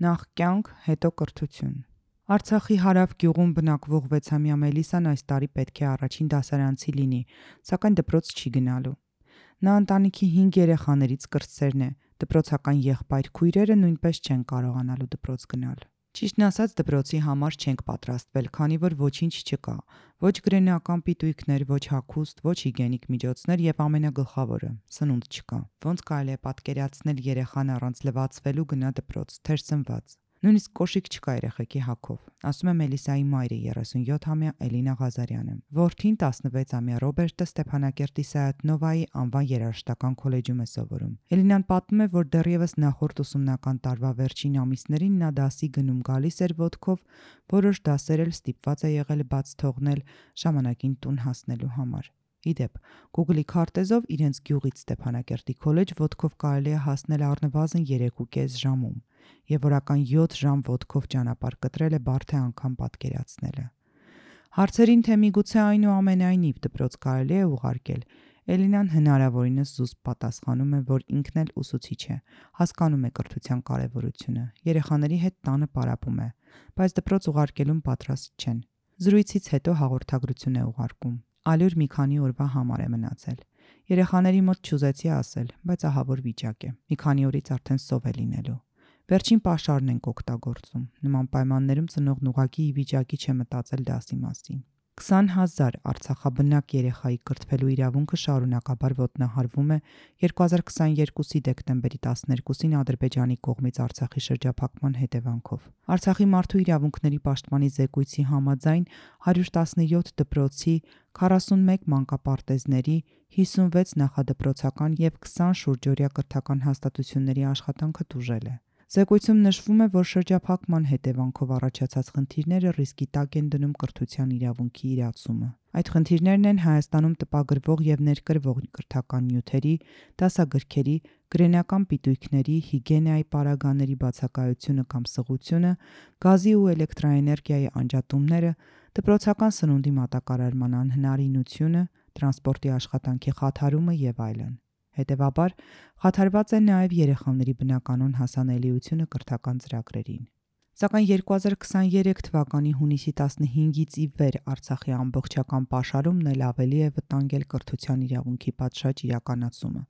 Նախ կյանք, հետո կրթություն։ Արցախի Հարավ գյուղում բնակվող 6-ամյա Մելիսան այս տարի պետք է առաջին դասարանցի լինի, սակայն դպրոց չի գնալու։ Նա ընտանիքի 5 երեխաներից կրտսերն է, դպրոցական եղբայր-քույրերը նույնպես չեն կարողանալու դպրոց գնալ։ Ճիշտն ասած, դպրոցի համար չենք պատրաստվել, քանի որ ոչինչ չկա, ոչ գրենական պիտույքներ, ոչ հագուստ, ոչ հիգիենիկ միջոցներ եւ ամենագլխավորը՝ սնունդ չկա։ Ոնց կարելի է պատկերացնել երեխան առանց լվացվելու գնա դպրոց, թեր սնված։ Նույնիսկ կոշիկ չկա երեխեքի հագով, ասում է Մելիսայի մայրը 37-ամյա Էլինա Ղազարյանը։ Որդին 16-ամյա Ռոբերտը Ստեփանակերտի Սայաթ-Նովայի անվան երաժշտական քոլեջում է սովորում։ Էլինան պատմում է, որ դեռևս նախորդ ուսումնական տարվա վերջին ամիսներին նա դասի գնում գալիս էր ոտքով, որոշ դասեր էլ ստիպված է եղել բաց թողնել ժամանակին տուն հասնելու համար։ Իդեպ, Google-ի քարտեզով իրենց գյուղից Ստեփանակերտի քոլեջ ոտքով կարելի է հասնել առնվազն 3.5 ժամում, եւ օրական 7 ժամ ոտքով ճանապարհ կտրելը բարդ է անգամ պատկերացնելը։ Հարցերին, թե միգուցե այնուամենայնիվ դպրոց կարելի է ուղարկել, Էլինան հնարավորինս զուսպ պատասխանում է, որ ինքն էլ ուսուցիչ է, հասկանում է կրթության կարևորությունը, երեխաների հետ տանը պարապում է, բայց դպրոց ուղարկելուն պատրաստ չեն։ Զրույցից հետո հաղորդագրություն է ուղարկում։ Ալյուր մի քանի օրվա համար է մնացել։ Երեխաների մոտ չուզեցի ասել, բայց ահավոր վիճակ է։ Մի քանի օրից արդեն սով է լինելու։ Վերջին պաշարն ենք օգտագործում։ Նման պայմաններում ծնողն ուղղակի ի վիճակի չէ մտածել դասի մասին։ 20,000 արցախաբնակ երեխայի կրթվելու իրավունքը շարունակաբար ոտնահարվում է 2022-ի դեկտեմբերի 12-ին Ադրբեջանի կողմից Արցախի շրջափակման հետևանքով։ Արցախի մարդու իրավունքների պաշտպանի զեկույցի համաձայն 117 դպրոցի, 41 մանկապարտեզների, 56 նախադպրոցական եւ 20 շուրջօրյա կրթական հաստատությունների աշխատանքը տուժել է։ Զեկույցում նշվում է, որ շրջափակման հետևանքով առաջացած խնդիրները ռիսկի տակ են դնում կրթության իրավունքի իրացումը։ Այդ խնդիրներն են Հայաստանում տպագրվող եւ ներկրվող կրթական նյութերի, դասագրքերի, գրենական պիտույքների, հիգիենայի պարագաների բացակայությունը կամ սղությունը, գազի ու էլեկտրաէներգիայի անջատումները, դպրոցական սնունդի մատակարարման անհնարինությունը, տրանսպորտի աշխատանքի խաթարումը եւ այլն։ Հետևաբար, խաթարված է նաև երեխաների բնականոն հասանելիությունը կրթական ծրագրերին։ Սակայն 2023 թվականի հունիսի 15-ից ի վեր Արցախի ամբողջական պաշարումն էլ ավելի է վտանգել կրթության իրավունքի պատշաճ իրականացումը,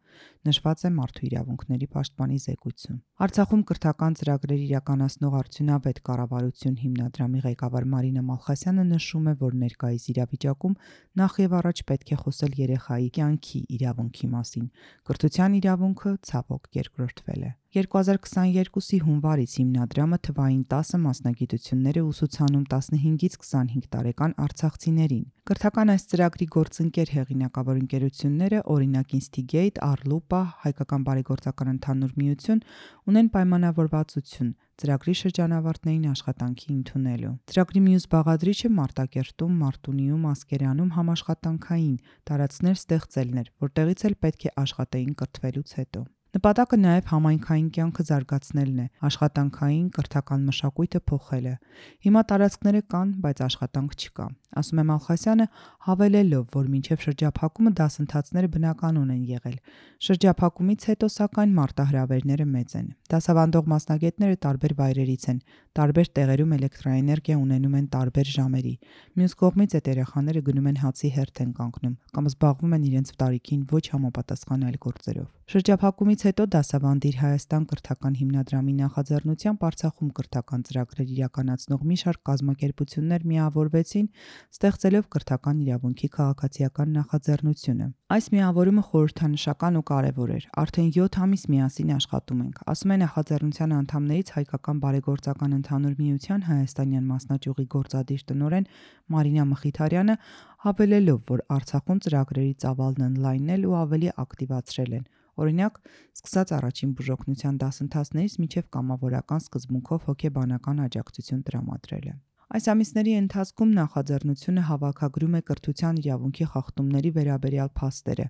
նշված է Մարդու իրավունքների պաշտպանի զեկույցում։ Արցախում կրթական ծրագրեր իրականացնող արդյունավետ կառավարություն հիմնադրամի ղեկավար Մարինա Մալխասյանը նշում է, որ ներկայիս իրավիճակում նախ եւ առաջ պետք է խոսել երեխայի կյանքի իրավունքի մասին։ Կրթության իրավունքը ցավոք երկրորդվել է։ 2022-ի հունվարից հիմնադրամը թվային 10 մասնագիտություններ է ուսուցանում 15-ից 25 տարեկան արցախցիներին։ Կրթական այս ծրագրի գործընկեր հեղինակավոր ընկերությունները, օրինակ Instigate, Arlupa, Հայկական բարեգործական ընդհանուր միություն, ունեն պայմանավորվածություն ծրագրի շրջանավարտներին աշխատանքի ընդունելու։ Ծրագրի մյուս բաղադրիչը Մարտակերտում, Մարտունիում, Ասկերանում համաշխատանքային տարածքներ ստեղծելն էր, որտեղից էլ պետք է աշխատեին կրթվելուց հետո։ Նպատակը նաև համայնքային կյանքը զարգացնելն է, աշխատանքային, կրթական մշակույթը փոխելը։ Հիմա տարածքները կան, բայց աշխատանք չկա, ասում է Մալխասյանը, հավելելով, որ մինչև շրջափակումը դասընթացները բնականon են եղել։ Շրջափակումից հետո, սակայն, մարտահրավերները մեծ են։ Դասավանդող մասնագետները տարբեր վայրերից են, տարբեր տեղերում էլեկտրաէներգիա ունենում են տարբեր ժամերի։ Մյուս կողմից այդ երեխաները գնում են հացի հերթ են կանգնում կամ զբաղվում են իրենց տարիքին ոչ համապատասխան այլ գործերով։ Շրջափակումից հետո Դասավանդիր Հայաստան կրթական հիմնադրամի նախաձեռնությամբ Արցախում կրթական ծրագրեր իրականացնող մի շարք կազմակերպություններ միավորվեցին, ստեղծելով կրթական իրավունքի քաղաքացիական նախաձեռնությունը։ Այս միավորումը խորհրդանշական ու կարևոր էր։ Արդեն 7 ամիս միասին աշխատում ենք, ասում է նախաձեռնության անդամներից Հայկական բարեգործական ընդհանուր միության հայաստանյան մասնաճյուղի գործադիր տնօրեն Մարինա Մխիթարյանը, հավելելով, որ Արցախում ծրագրերի ծավալն ընդլայնել ու ավելի ակտիվացրել են։ Օրինակ, սկսած առաջին բուժօգնության դասընթացներից մինչև կամավորական սկզբունքով հոգեբանական աջակցություն տրամադրելը։ Այս ամիսների ընթացքում նախաձեռնությունը հավաքագրում է կրթության իրավունքի խախտումների վերաբերյալ փաստերը,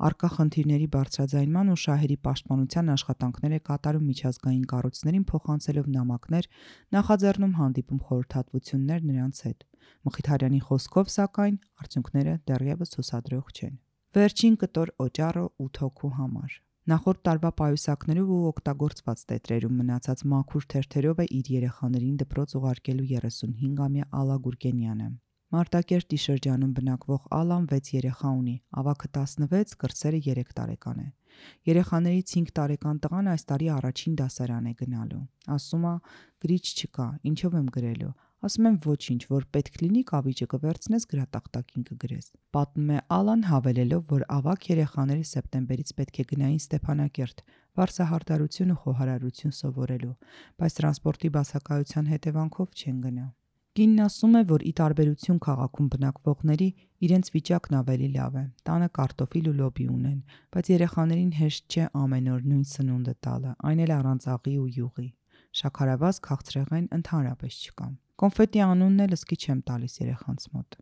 առկա խնդիրների բարձրաձայնման ու շահերի պաշտպանության աշխատանքներ է կատարում միջազգային կառույցներին փոխանցելով նամակներ, նախաձեռնում հանդիպում խորհրդատվություններ նրանց հետ։ Մխիթարյանի խոսքով, սակայն, արդյունքները դեռևս հուսադրող չեն։ Վերջին կտոր օճառը 8 հոգու համար։ Նախորդ տարվա պայուսակներով ու օգտագործված տետրերում մնացած մաքուր թերթերով է իր երեխաներին դպրոց ուղարկելու 35-ամյա Ալա Գուրգենյանը։ Մարտակերտի շրջանում բնակվող Ալան 6 երեխա ունի, ավագը 16, կրտսերը 3 տարեկան է։ Երեխաներից 5 տարեկան տղան այս տարի առաջին դասարան է գնալու։ Ասում է՝ գրիչ չկա, ինչով եմ գրելու։ Ասում եմ ոչինչ, որ պետք լինի կավիճը կվերցնես գրատախտակին կգրես։ Պատմում է Ալան, հավելելով, որ ավագ երեխաները սեպտեմբերից պետք է գնային Ստեփանակերտ, վարսահարդարություն ու խոհարարություն սովորելու, բայց տրանսպորտի բացակայության հետևանքով չեն գնա։ Կինն ասում է, որ ի տարբերություն քաղաքում բնակվողների, իրենց վիճակն ավելի լավ է։ Տանը կարտոֆիլ ու լոբի ունեն, բայց երեխաներին հեշտ չէ ամեն օր նույն սնունդը տալը, այն էլ առանց աղի ու յուղի։ Շաքարավազ, քաղցրեղեն ընդհանրապես չկա։ Կոնֆետի անունն էլ ըսկի չեմ տալիս երեխանց մոտ։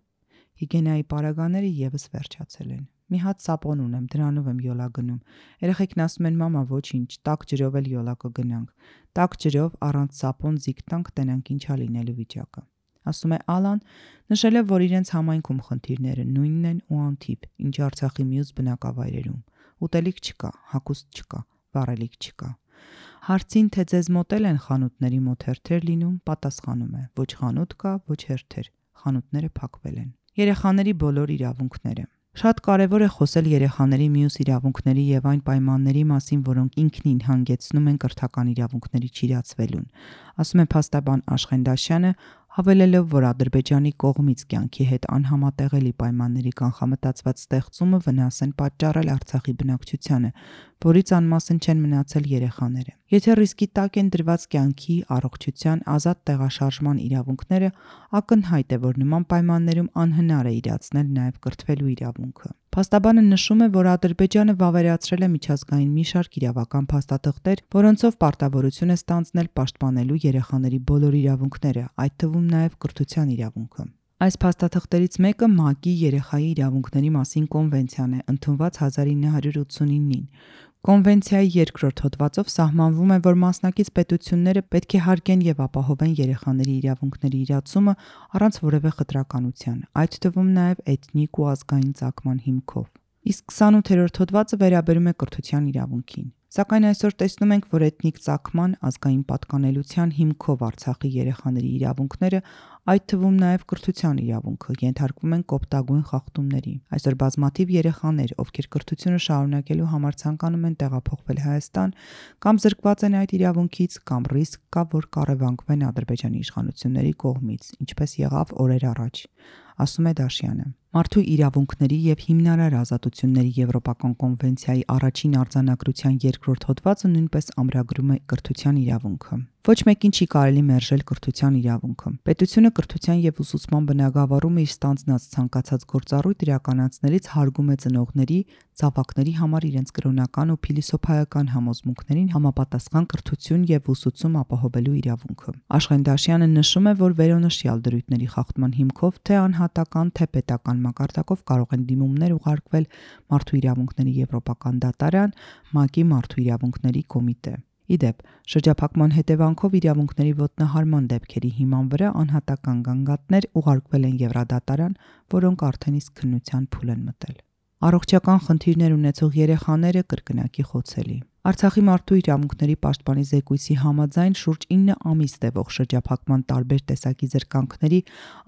Հիգիենայի պարագաները եւս վերջացել են։ Մի հատ սապոն ունեմ, դրանով եմ յոլա գնում։ Երեխեքն ասում են՝ մամա, ոչինչ, տաք ջրով էլ յոլա կգնանք։ Տաք ջրով առանց սապոն զիգ տանք, տենանք ինչա լինելու վիճակը։ Ասում է Ալան, նշել է, որ իրենց համայնքում խնդիրները նույնն են ու անթիվ, ինչ Արցախի մյուս բնակավայրերում։ Ուտելիք չկա, հագուստ չկա, վառելիք չկա։ Հարցին, թե ձեզ մոտել են խանութների մոտ հերթեր լինում, պատասխանում է՝ ոչ խանութ կա, ոչ հերթեր, խանութները փակվել են։ Երեխաների բոլոր իրավունքները։ Շատ կարևոր է խոսել երեխաների մյուս իրավունքների եւ այն պայմանների մասին, որոնք ինքնին հանգեցնում են կրթական իրավունքների չիրացվելուն, ասում է փաստաբան Աշխեն Դաշյանը, հավելելով, որ Ադրբեջանի կողմից կյանքի հետ անհամատեղելի պայմանների կանխամտածված ստեղծումը վնաս են պատճառել Արցախի բնակչությանը, որից անմասն չեն մնացել երեխաները։ Եթե ռիսկի տակ են դրված կյանքի, առողջության, ազատ տեղաշարժման իրավունքները, ակնհայտ է, որ նման պայմաններում անհնար է իրացնել նաև կրթվելու իրավունքը։ Փաստաբանը նշում է, որ Ադրբեջանը վավերացրել է միջազգային մի շարք իրավական փաստաթղթեր, որոնցով պարտավորություն է ստանձնել պաշտպանելու երեխաների բոլոր իրավունքները, այդ թվում նաև կրթության իրավունքը։ Այս փաստաթղթերից մեկը ՄԱԿ-ի երեխայի իրավունքների մասին կոնվենցիան է, ընդունված 1989-ին։ Կոնվենցիայի 2-րդ հոդվածով սահմանվում է, որ մասնակից պետությունները պետք է հարգեն եւ ապահովեն երեխաների իրավունքների իրացումը առանց որևէ խտրականության, այդ թվում նաև էթնիկ ու ազգային ծագման հիմքով։ Իսկ 28-րդ հոդվածը վերաբերում է կրթության իրավունքին։ Սակայն այսօր տեսնում ենք, որ էթնիկ ծագման, ազգային պատկանելության հիմքով Արցախի երեխաների իրավունքները, այդ թվում նաև կրթության իրավունքը, ենթարկվում են կոպտագույն խախտումների։ Այսօր բազմաթիվ երեխաներ, ովքեր կրթությունը շարունակելու համար ցանկանում են տեղափոխվել Հայաստան, կամ զրկված են այդ իրավունքից, կամ ռիսկ կա, որ կառևանգվեն Ադրբեջանի իշխանությունների կողմից, ինչպես եղավ օրեր առաջ, ասում է Դաշյանը։ Մարդու իրավունքների եւ հիմնարար ազատությունների Եվրոպական կոնվենցիայի առաջին արձանագրության 2-րդ հոդվածը նույնպես ամրագրում է կրթության իրավունքը։ Ոչ մեկին չի կարելի մերժել կրթության իրավունքը։ Պետությունը կրթության եւ ուսուցման բնագավառումը իր ստանձնած ցանկացած գործառույթ իրականացնելիս հարգում է ծնողների, զավակների համար իրենց կրոնական ու փիլիսոփայական համոզմունքներին համապատասխան կրթություն եւ ուսուցում ապահովելու իրավունքը։ Աշխեն Դաշյանը նշում է, որ վերոնշյալ դրույթների խախտման հիմքով թե անհատական, թե պետական մակարդակով կարող են դիմումներ ուղարկվել Մարդու իրավունքների Եվրոպական դատարան, ՄԱԿ-ի Մարդու իրավունքների կոմիտե։ Իդեպ, շրջափակման հետևանքով իրավունքների ոտնահարման դեպքերի հիման վրա անհատական գանգատներ ուղարկվել են Եվրադատարան, որոնք արդեն իսկ քննության փուլ են մտել։ Առողջական խնդիրներ ունեցող երեխաները կրկնակի խոցելի։ Արցախի մարդու իրավունքների պաշտպանի զեկույցի համաձայն շուրջ 9 ամիս տևող շրջափակման տարբեր տեսակի զրկանքների,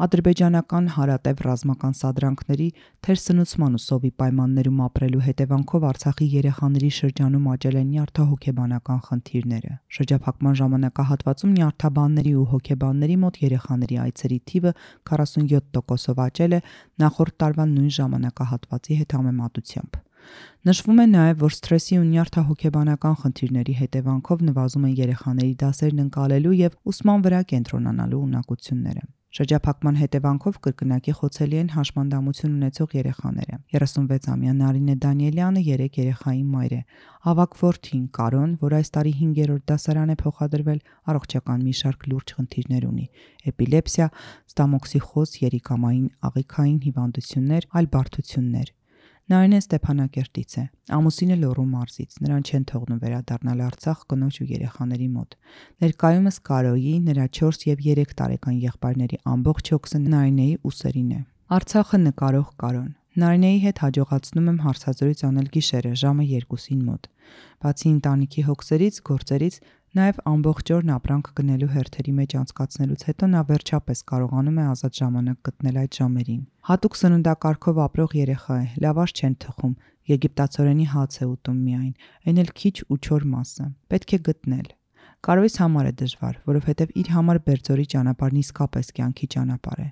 ադրբեջանական հարատև ռազմական սադրանքների, թերսնուցման ու սովի պայմաններում ապրելու հետևանքով Արցախի երեխաների շրջանում աճել են նյարդահոգեբանական խնդիրները։ Շրջափակման ժամանակահատվածում նյարդաբանների ու հոգեբանների մոտ երեխաների այցերի թիվը 47%-ով աճել է նախորդ տարվա նույն ժամանակահատվածի հետ համեմատությամբ։ Նշվում է նաև, որ սթրեսի ու նյարդահոգեբանական խնդիրների հետևանքով նվազում են երեխաների դասերն ընկալելու եւ ուսման վրա կենտրոնանալու ունակությունները։ Շրջափակման հետևանքով կրկնակի խոցելի են հաշմանդամություն ունեցող երեխաները։ 36-ամյա Նարինե Դանիելյանը 3 երեխայի մայր է։ Ավագ որդին Կարոն, որ այս տարի 5-րդ դասարան է փոխադրվել, առողջական մի շարք լուրջ խնդիրներ ունի՝ էպիլեպսիա, ստամոքսիխոզ, երիկամային աղիքային հիվանդություններ, այլ բարդություններ։ Նարինեն Ստեփանակերտից է, ամուսինը Լոռու մարզից, նրան չեն թողնում վերադառնալ Արցախ կնոջ ու երեխաների մոտ։ Ներկայումս Կարոյի, նրա 4 եւ 3 տարեկան եղբայրների ամբողջ հոգսը Նարինեի ուսերին է։ Արցախը նկարող Կարոն։ Նարինեի հետ հաջողացնում եմ հարցազրույց անել գիշերը ժամը 2-ին մոտ։ Բացի ընտանիքի հոգսերից, գործերից, նաև ամբողջ օրն ապրանք գնելու հերթերի մեջ անցկացնելուց հետո նա վերջապես կարողանում է ազատ ժամանակ գտնել այդ ժամերին։ Հատուկ սննդակարգով ապրող երեխա է, լավաշ չեն թխում, եգիպտացորենի հաց է ուտում միայն, այն էլ քիչ ու չոր մասը։ Պետք է գտնել։ Կարոյս համար է դժվար, որովհետև իր համար Բերձորի ճանապարհն իսկապես կյանքի ճանապարհ է։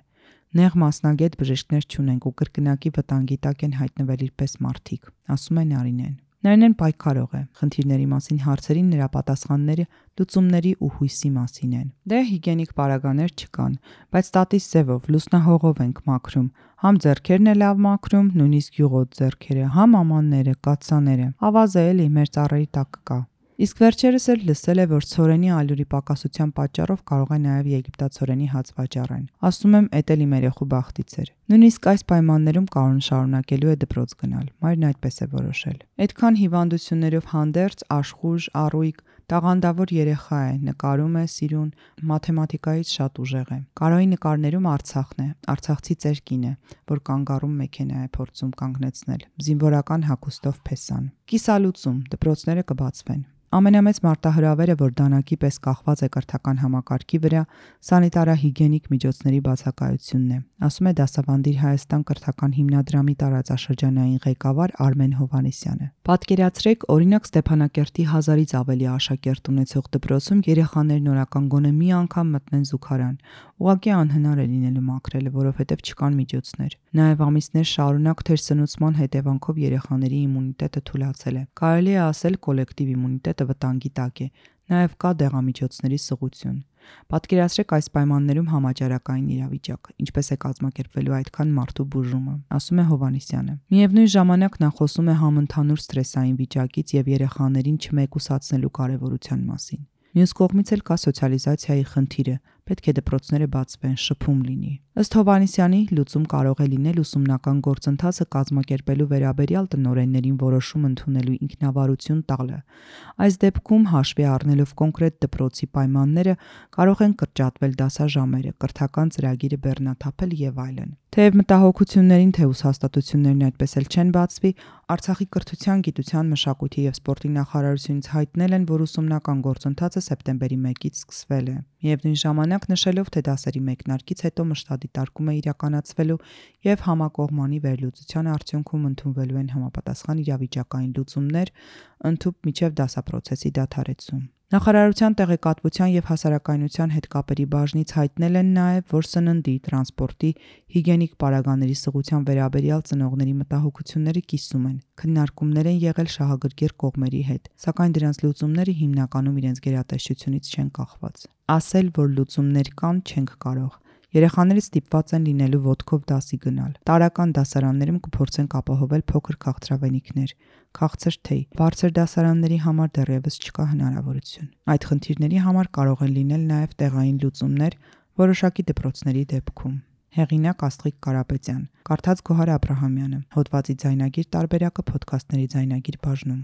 Նեղ մասնագետ բժիշկներ չունենք ու կրկնակի վտանգի տակ են հայտնվել իրպես մարդիկ, ասում է Նարինեն։ Նարինեն պայքարող է, խնդիրների մասին հարցերին նրա պատասխանները լուծումների ու հույսի մասին են։ Դե հիգիենիկ պարագաներ չկան, բայց տատիս ձևով լուսնահողով ենք մաքրում, համ ձեռքերն է լավ մաքրում, նույնիսկ յուղոտ ձեռքերը, համ ամանները, կաթսաները, ավազը էլի մեր ծառերի տակ կա։ Իսկ վերջերս էլ լսել է, որ ցորենի ալյուրի պակասության պատճառով կարող է նաև եգիպտացորենի հաց վաճառեն։ Ասում եմ, էդ էլ իմ երեխու բախտից էր։ Նույնիսկ այս պայմաններում Կարոն շարունակելու է դպրոց գնալ, մայրն այդպես է որոշել։ Այդքան հիվանդություններով հանդերձ, աշխույժ, առույգ, տաղանդավոր երեխա է, նկարում է, սիրուն, մաթեմատիկայից շատ ուժեղ է։ Կարոյի նկարներում Արցախն է, արցախցի ծեր կին է, որ կանգառում մեքենա է փորձում կանգնեցնել, զինվորական հագուստով փեսան։ Կիսալուծում, դպրոցները կբացվեն։ Ամենամեծ մարտահրավերը, որ դանակի պես կախված է կրթական համակարգի վրա, սանիտարահիգիենիկ միջոցների բացակայությունն է, ասում է Դասավանդիր Հայաստան կրթական հիմնադրամի տարածաշրջանային ղեկավար Արմեն Հովհաննիսյանը։ Պատկերացրեք, օրինակ Ստեփանակերտի 1000-ից ավելի աշակերտ ունեցող դպրոցում երեխաներն օրական գոնե մի անգամ մտնեն զուգարան։ Ուղղակի անհնար է լինելու մաքրելը, որովհետև չկան միջոցներ։ Նաև ամիսներ շարունակ թերսնուցման հետևանքով երեխաների իմունիտետը թուլացել է։ Կարելի է ասել կոլեկտիվ իմունիտետը վտանգի տակ է։ Նաև կա դեղամիջոցների սղություն։ Պատկերացրեք այս պայմաններում համաճարակային իրավիճակ, ինչպես է կազմակերպվելու այդքան մարդու բուժումը, ասում է Հովհաննիսյանը։ Միևնույն ժամանակ նա խոսում է համընդհանուր սթրեսային վիճակից եւ երեխաներին չմեկուսացնելու կարեւորության մասին։ Մյուս կողմից էլ կա սոցիալիզացիայի խնդիրը, պետք է դպրոցները բացվեն, շփում լինի։ Ըստ Հովհաննիսյանի, լուծում կարող է լինել ուսումնական գործընթացը կազմակերպելու վերաբերյալ տնօրեններին որոշում ընդունելու ինքնավարություն տալը։ Այս դեպքում հաշվի առնելով կոնկրետ դպրոցի պայմանները կարող են կրճատվել դասաժամերը, կրթական ծրագիրը բեռնաթափել եւ այլն։ Թեև մտահոգություններին թե ուսհաստատություններն այդպես էլ չեն բացվի, Արցախի կրթության, գիտության, մշակույթի եւ սպորտի նախարարությունից հայտնել են, որ ուսումնական գործընթացը սեպտեմբերի 1-ից սկսվել է։ Միևնույն ժամանակ նշելով, թե դասերի մեկնարկից հետո մշտադիտարկում է իրականացվելու եւ համակողմանի վերլուծության արդյունքում ընդունվելու են համապատասխան իրավիճակային լուծումներ, ընդհուպ միջև դասապրոցեսի դադարեցում։ Նախարարության տեղեկատվության եւ հասարակայնության հետ կապերի բաժնից հայտնել են նաեւ, որ սննդի, տրանսպորտի, հիգիենիկ պարագաների սղության վերաբերյալ ծնողների մտահոգությունները կիսում են։ Քննարկումներ են եղել շահագրգիռ կողմերի հետ, սակայն դրանց լուծումները հիմնականում իրենց գերատեսչությունից չեն կախված։ Ասել, որ լուծումներ կան, չենք կարող։ Երեխաներից ստիպված են լինելու ոտքով դասի գնալ։ Տարրական դասարաններում կփորձենք ապահովել փոքր քաղցրավենիքներ, քաղցր թեյ։ Բարձր դասարանների համար դեռևս չկա հնարավորություն։ Այդ խնդիրների համար կարող են լինել նաև տեղային լուծումներ որոշակի դպրոցների դեպքում։ Հեղինակ Աստղիկ Կարապետյան, կարդաց Գոհար Աբրահամյանը, հոդվածի ձայնագիր տարբերակը Փոդքասթների ձայնագիր բաժնում։